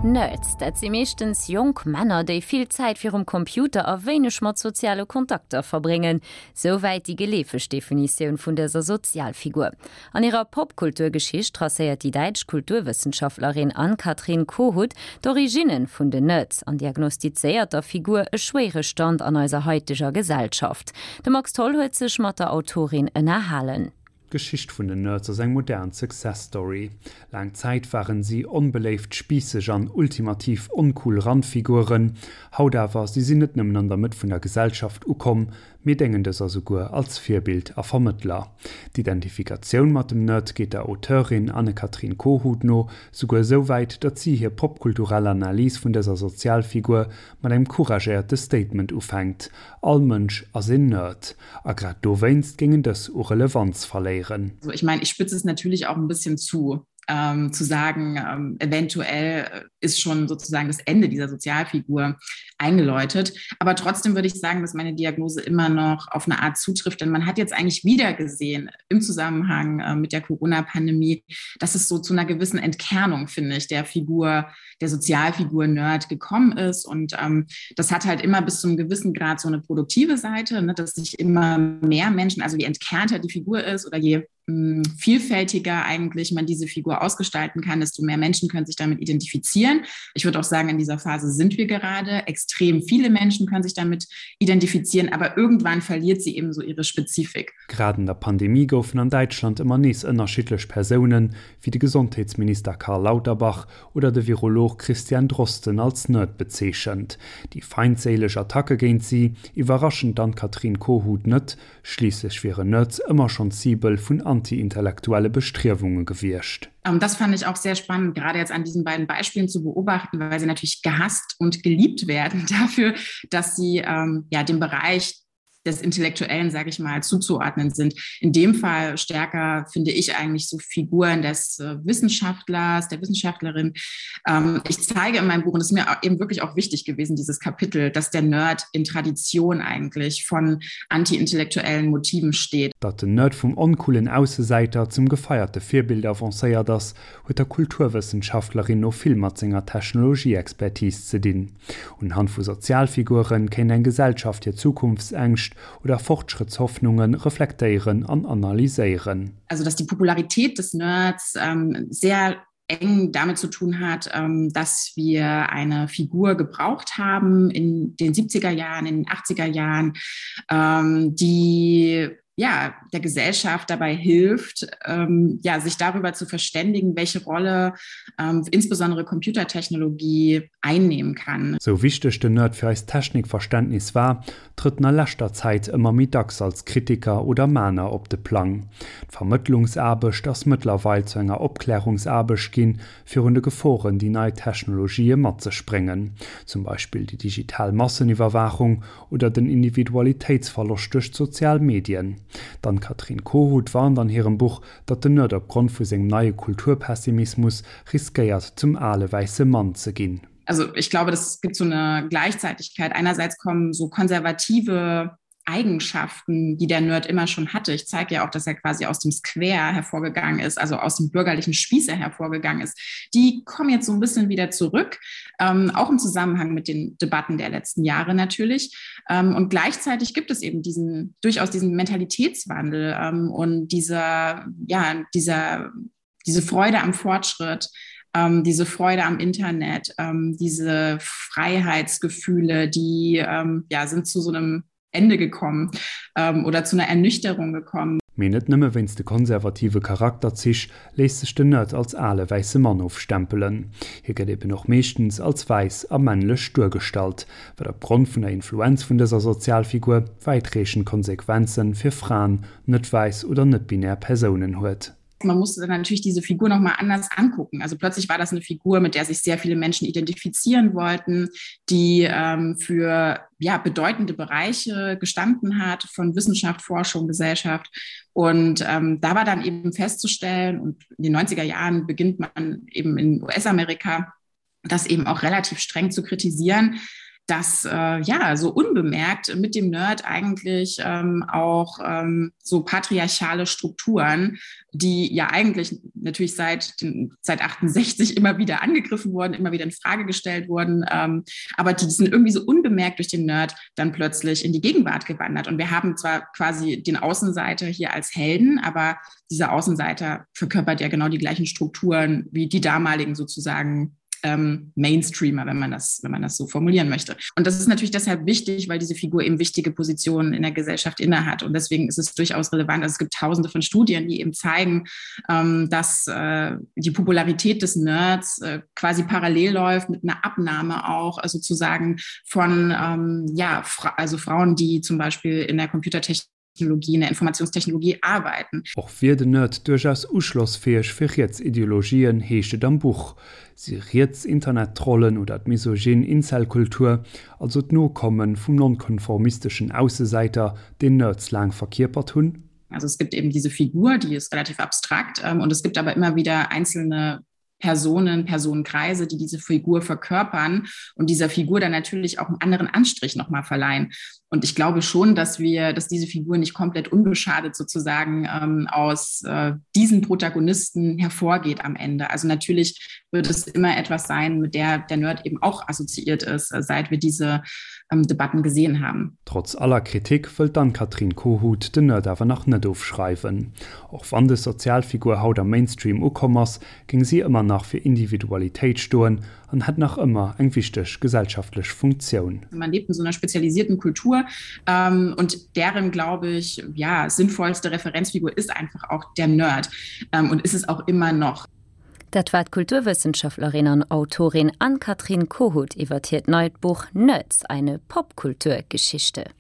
Nerds, dat si meeschtens jonk Männer, déi vill Zäit virum Computer a wéineg mat soziale Kontakter verbréngen. Souwäit déi geleefeg Definitioun vun dëser Sozialfigur. An hirer Popkulturgeschicht tracéiert déi däitsch Kulturwëssenschaftlerin Ann-Kathrin Kohut d'Originne vun den Nerds an diagnostizéiert der Figur e schwéiere Stand an eiser haiteger Gesellschaft. De Max Tholl huet sech mat der Autorin ënnerhalen. D'Geschicht vun den Nerds ass eng modern Success Story. Laang Zäit waren si onbeléift, spiisseg an ultimativ oncool Randfiguren. Haut awer, si sinn net nëmmen an der Mëtt vun der Gesellschaft ukomm, mee déngen dëser souguer als Virbild a Vermëttler. D'Identifikatioun mat dem Nerd geet der Auteurin Anne-Kathrin Kohut no souguer esou wäit, datt si hir popkulturell Analys vun dëser Sozialfigur mat engem couragéierte Statement ufänkt, All Mënsch ass een Nerd. A grad dowéinst géingen dës u Relevanz verléieren. Ich meine, ich spitze es natürlich auch ein bisschen zu ähm, zu sagen, ähm, eventuell ist schon sozusagen das Ende dieser Sozialfigur eingeläutet. Aber trotzdem würde ich sagen, dass meine Diagnose immer noch auf eine Art zutrifft, denn man hat jetzt eigentlich wieder gesehen im Zusammenhang äh, mit der Corona-Pandemie, dass es so zu einer gewissen Entkernung, finde ich, der Figur, der Sozialfigur Nerd gekommen ist. Und ähm, das hat halt immer bis zu einem gewissen Grad so eine produktive Seite, ne, dass sich immer mehr Menschen, also je entkernter die Figur ist oder je hm, vielfältiger eigentlich man diese Figur ausgestalten kann, desto mehr Menschen können sich damit identifizieren. Ich würde auch sagen, in dieser Phase sind wir gerade. Extrem viele Menschen können sich damit identifizieren, aber irgendwann verliert sie eben so ihre Spezifik. Grad an der Pandemie goufen an Däitschland ëmmer nees ënnerschiddlech Persounen, wéi de Gesondheetsminister Karl Lauterbach oder de Virolog Christian Drosten als Nerd bezeechent. Déi feindséileg Attacke géint si iwwerraschen d'Ann-Kathrin Kohut net, schliisslech wieren Nerds ëmmer schonn d'Cibel vun anti-intellektuelle Bestriewunge gewiescht. Das fand ich auch sehr spannend, gerade jetzt an diesen beiden Beispielen zu beobachten, weil sie natürlich gehasst und geliebt werden dafür, dass sie ähm, ja dem Bereich des Intellektuellen, sage ich mal, zuzuordnen sind. In dem Fall stärker finde ich eigentlich so Figuren des äh, Wissenschaftlers, der Wissenschaftlerin. Ähm, ich zeige in meinem Buch, und es ist mir eben wirklich auch wichtig gewesen, dieses Kapitel, dass der Nerd in Tradition eigentlich von antiintellektuellen Motiven steht. Datt den Nerd vum oncoolen Aussesäiter zum gefeierte Virbild avancéiert ass, huet der Kulturwëssenschaftlerin no vill mat senger Technologieexpertise ze dinn. Unhand vu Sozialfigure kéint eng Gesellschaft hir Zukunftsängscht oder Fortschrëttshoffnunge reflektéieren an analyséieren. Also dass die Popularität des Nerds sehr eng damit zu tun hat, dass wir eine Figur gebraucht haben in den 70er Jahren, in den 80er Jahren, die ja, der Gesellschaft dabei hilft, ähm, ja, sich darüber zu verständigen, welche Rolle ähm, insbesondere Computertechnologie einnehmen kann. Sou wichteg den Nerd fir eist Technikverständnis war, trëtt en a leschter Zäit ëmmer méi dacks als Kritiker oder Mahner op de Plang. D'Vermëttlungsaarbecht ass mëttlerweil zu enger Opklärungsaarbecht ginn, virun de Geforen, déi nei Technologië mat sech bréngen, zum Beispill déi digital Masseniwwerwaachung oder den Individualitéitsverloscht duerch d'sozial Medien. D'Ann-Kathrin Kohut warnt an hirem Buch, datt den Nerd opgrond vu sengem neie Kulturpessimismus riskéiert zum ale wäisse Mann ze ginn. Also ich glaube, es gibt so eine Gleichzeitigkeit. Einerseits kommen so konservative Eigenschaften, die der Nerd immer schon hatte. Ich zeige ja auch, dass er quasi aus dem Square hervorgegangen ist, also aus dem bürgerlichen Spießer hervorgegangen ist. Die kommen jetzt so ein bisschen wieder zurück, ähm, auch im Zusammenhang mit den Debatten der letzten Jahre natürlich. Ähm, und gleichzeitig gibt es eben diesen durchaus diesen Mentalitätswandel ähm, und dieser, ja, dieser, diese Freude am Fortschritt, ähm, diese Freude am Internet, ähm, diese Freiheitsgefühle, die ähm, ja, sind zu so einem Ende gekommen ähm, oder zu einer Ernüchterung gekommen. Mee net nëmme wéinst de konservative Charakterzich léisst sech den Nerd als ale wäisse Mann ofstempelen. Hie gëtt eben och meeschtens als wäiss a männlech duergestallt, wat opgrond vun der Influenz vun dëser Sozialfigur wäitreechend Konsequenze fir Fraen, net wäiss oder net-binär Persounen huet. Man musste dann natürlich diese Figur noch mal anders angucken. Also plötzlich war das eine Figur, mit der sich sehr viele Menschen identifizieren wollten, die ähm, für ja, bedeutende Bereiche gestanden hat von Wissenschaft, Forschung, Gesellschaft. Und ähm, da war dann eben festzustellen, und in den 90er Jahren beginnt man eben in US-Amerika, das eben auch relativ streng zu kritisieren. dass äh, ja so unbemerkt mit dem Nerd eigentlich ähm, auch ähm, so patriarchale Strukturen, die ja eigentlich natürlich seit, seit 68 immer wieder angegriffen wurden, immer wieder in Frage gestellt wurden, ähm, aber die sind irgendwie so unbemerkt durch den Nerd dann plötzlich in die Gegenwart gewandert. Und wir haben zwar quasi den Außenseiter hier als Helden, aber dieser Außenseiter verkörpert ja genau die gleichen Strukturen wie die damaligen sozusagen ähm, Mainstreamer, wenn man das, wenn man das so formulieren möchte. Und das ist natürlich deshalb wichtig, weil diese Figur eben wichtige Positionen in der Gesellschaft innehat. Und deswegen ist es durchaus relevant. Also es gibt tausende von Studien, die eben zeigen, ähm, dass äh, die Popularität des Nerds äh, quasi parallel läuft mit einer Abnahme auch äh, sozusagen von ähm, ja, fra also Frauen, die zum Beispiel in der Computertechnik Technologie, in der Informationstechnologie arbeiten. Och wier den Nerd duerchaus uschlossfäeg fir riets Ideologien, heescht et am Buch. Si riets Internettrollen oder d'misogyn Incel-Kultur, also d'Nokomme vum nonkonformisteschen Aussesäiter, deen Nerds laang verkierpert hunn? Also es gibt eben diese Figur, die ist relativ abstrakt ähm, und es gibt aber immer wieder einzelne Personen, Personenkreise, die diese Figur verkörpern und dieser Figur dann natürlich auch einen anderen Anstrich noch mal verleihen. Und ich glaube schon, dass wir, dass diese Figur nicht komplett unbeschadet sozusagen ähm, aus äh, diesen Protagonisten hervorgeht am Ende. Also natürlich wird es immer etwas sein, mit der der Nerd eben auch assoziiert ist, äh, seit wir diese ähm, Debatten gesehen haben. Trotz aller Kritik wëllt d'Ann-Kathrin Kohut den Nerd awer nach net ofschreiwen. Och wann dës Sozialfigur haut am Mainstream ukomm ass, géing si ëmmer nach fir Individualitéit stoen an hätt nach ëmmer eng wichteg gesellschaftlech Funktioun. Man lebt in so einer spezialisierten Kultur ähm, und deren, glaube ich, ja, sinnvollste Referenzfigur ist einfach auch der Nerd ähm, und ist es auch immer noch. Dat war d'Kulturwëssenschaftlerin an Autorin Ann-Kathrin Kohut iwwer hiert neit Buch Nerds, eine Popkulturgeschichte.